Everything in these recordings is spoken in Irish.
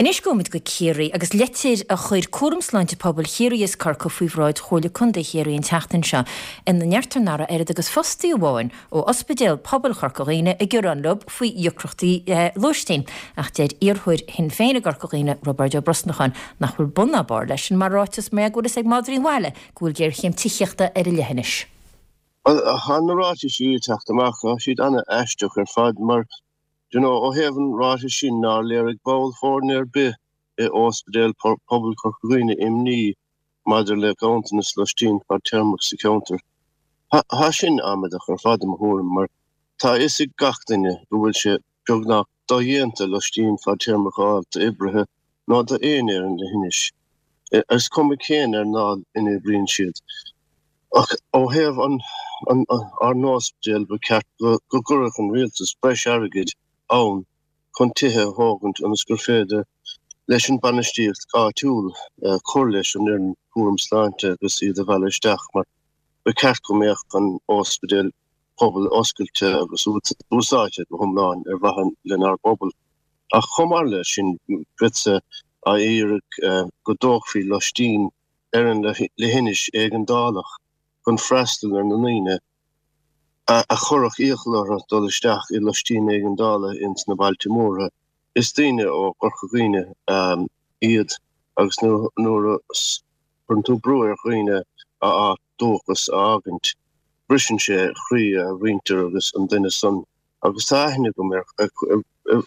Anois gabhfaimid go Ciarraí agus litir a chuir Cúram Sláinte Pobail Chiarraí is Corcaigh faoi bhráid Chomhairle Contae Chiarraí an tseachtain seo ina ndeirtear nach raibh oiread agus fostaí amháin ó Ospidéal Pobail Chorca Dhuibhne ag gearán leo faoi dheacrachtaí lóistín. Ach deir iarrthóir Shinn Féin i gCorca Dhuibhne, Roibeárd Ó Brosnacháin, nach bhfuil bun ná barr leis sin mar ráiteas mar go bhfuil fhios ag madraí an bhaile go bhfuil géarchéim tithíochta ar an leithinis. Bhuel, tá na ráitisí ag teacht amach, tá siad ana-aisteach ar fad mar Do you know, ó thaobh an ráitis sin nár léirigh ball foirne ar bith i Ospidéal Pobail Chorca Dhuibhne imní maidir le ganntanas loistín fadtéarmach sa cheantar. Tá sin amaideach ar fad i mo thuairim mar tá a fhios ag gach duine go bhfuil sé beagnach dodhéanta loistín fadtéarmach a fháil d'oibrithe nó d'éinne ar an leithinis, is cuma cén earnáil ina oibríonn siad. Ach ó thaobh ár n-ospidéal, ba cheart go gcuirfeadh an rialtas breis airgid ann chun tithe a thógaint ionas gur féidir leis an bainistíocht áitiúil cur leis an fhoireann cúram sláinte agus iad a mhealladh isteach mar ba cheart go mbeadh an ospidéal pobail oscailte agus úsáidte go hiomlán ar mhaithe lenár bpobal. Ach chomh maith leis sin, bheadsa á iarraidh go dtógfaí loistín ar an leithinis éigeandálach chun freastal ar na ndaoine a chuirfeadh iachall orthu dul isteach i loistín éigeandála ins na bailte móra. Is daoine ó Chorca Dhuibhne iad agus nuair a chuireann tú brú ar dhaoine a áit dúchas a fhágaint, briseann sé croí a mhuintir agus an duine san agus tá aithne agam ar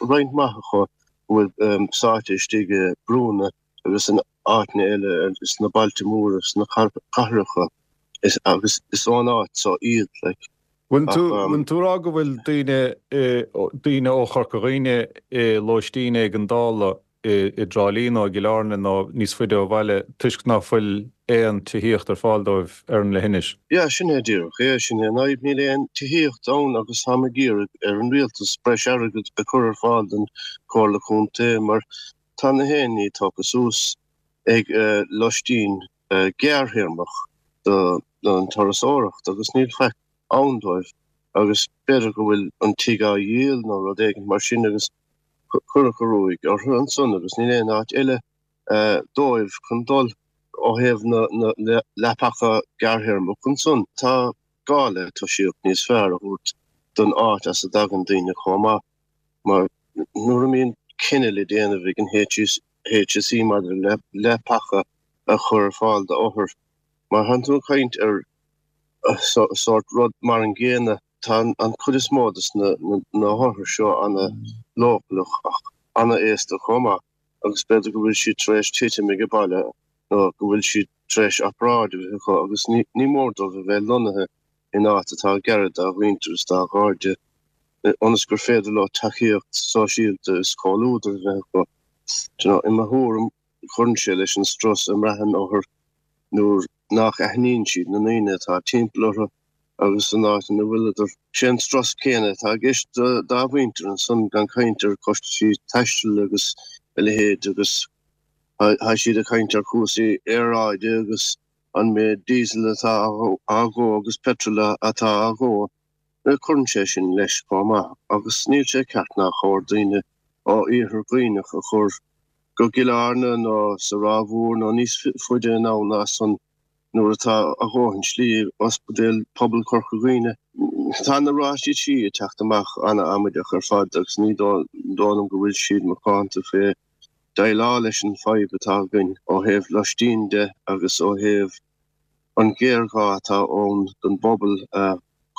roinnt mhaith acu a bhfuil sáite istigh i brúnna agus in áiteanna eile sna bailte móra, sna cathracha agus is ón áit so iad like. Bhfuil tú, bhfuil tú ag rá go bhfuil daoine, daoine ó Chorca Dhuibhne i lóistín éigeandála i dTrá Lí nó i gCill Airne nó níos faide ó bhaile toisc ná fuil aon tithíocht ar fáil dóibh ar an leithinis? Yeah, sin é díreach é, sin é an fhadhb, níl aon tithíocht ann agus táim ag iarraidh ar an rialtas breis airgid a chur ar fáil don Chomhairle Contae mar Tá na haon ní tógtha suas ag loistín gearrthéarmach don turasóireacht agus níl faic ann dóibh agus b'fhéidir go bhfuil an tigh á dhíol nó rud éigin mar sin agus cuireadh an ruaig orthu ansan agus níl aon áit eile dóibh chun dul ó thaobh na leapacha gearrthéarmach ansan. Tá gá le tosaíocht níos fearr a thabhairt don áit as a dtagann daoine chomh maith. Mar nuair a mbíonn cinneadh le déanamh ag an HSE maidir le leapacha a chur ar fáil d'othair, mar tánn tú ag caint ar sórt rud mar an gcéanna, tá an chuid is mó de na hothair seo ana leochaileach ach ana aosta chomh maith agus b'fhéidir go bhfuil siad tar éis titim ag baile nó go bhfuil siad tar éis obráid a bheith acu agus ní mór dóibh a bheith lonnaithe in áit atá gairid dá mhuintir is dá gcairde, ionas gur féidir leo tacaíocht sóisialta is comhluadar a bheith acu. Do you know, i mo thuairim, cuireann sé leis an strus a mbraitheann othair nuair nach aithníonn siad na ndaoine atá timpeall orthu agus an áit ina bhfuileadar. Sé an strus céanna atá i gceist dá mhuintir ansan, gan caint ar chostaisí taistil agus a leithéid agus tá siad ag caint ar chúrsaí aeráide agus an méid diesel atá á dhó agus petrol atá á dhó, cuireann sé sin leis chomh maith agus níl sé ceart nár chóir daoine ó Iarthar Dhuibhneach a chur go gCill Airne nó sa Ráth Mhór nó níos faide anonn ná san nuair atá a dhóthain slí ag Ospidéal Pobail Chorca Dhuibhne. Tá na ráitisí ag teacht amach ana-amaideach ar fad agus ní dóigh liom go bhfuil siad macánta fé déileáil leis an fadhb atá againn ó thaobh loistín de agus ó thaobh an ghéarghá atá ann don bpobal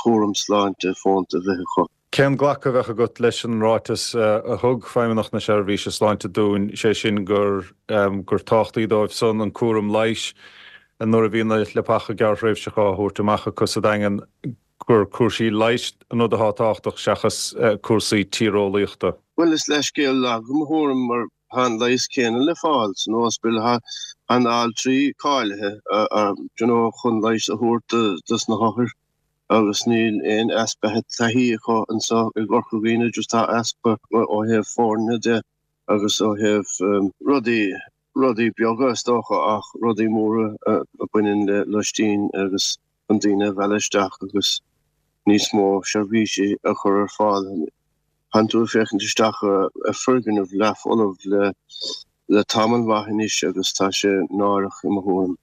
cúram sláinte fónta a bheith acu. Cén glacadh a bheadh agat leis an ráiteas a thug Feidhmeannacht na Seirbhíse Sláinte dúinn, sé sin gur gur tábhachtaí dóibh san an cúram leighis nuair a bhíonn na leapacha gearrthréimhseacha á thabhairt amach acu sa Daingean, gur cúrsaí leighis an rud atá tábhachtach seachas cúrsaí tíreolaíochta. Bhuel, is leithscéal lag i mo thuairim mar tá an leigheas céanna le fáil san ospidéal, tá na altraí cáilithe you know chun leigheas a thabhairt dos na hothair agus níl aon easpa taithí acu anseo i gCorca Dhuibhne, just tá easpa ó thaobh foirne de agus ó thaobh rudaí rudaí beaga is dócha ach rudaí móra a bhaineann le loistín agus chun daoine a mhealladh isteach agus níos mó seirbhísí a chur ar fáil. Tánn tú ag féachaint isteach ar foirgneamh leathfholamh le le tamall maith anois agus tá sé náireach i mo thuairim.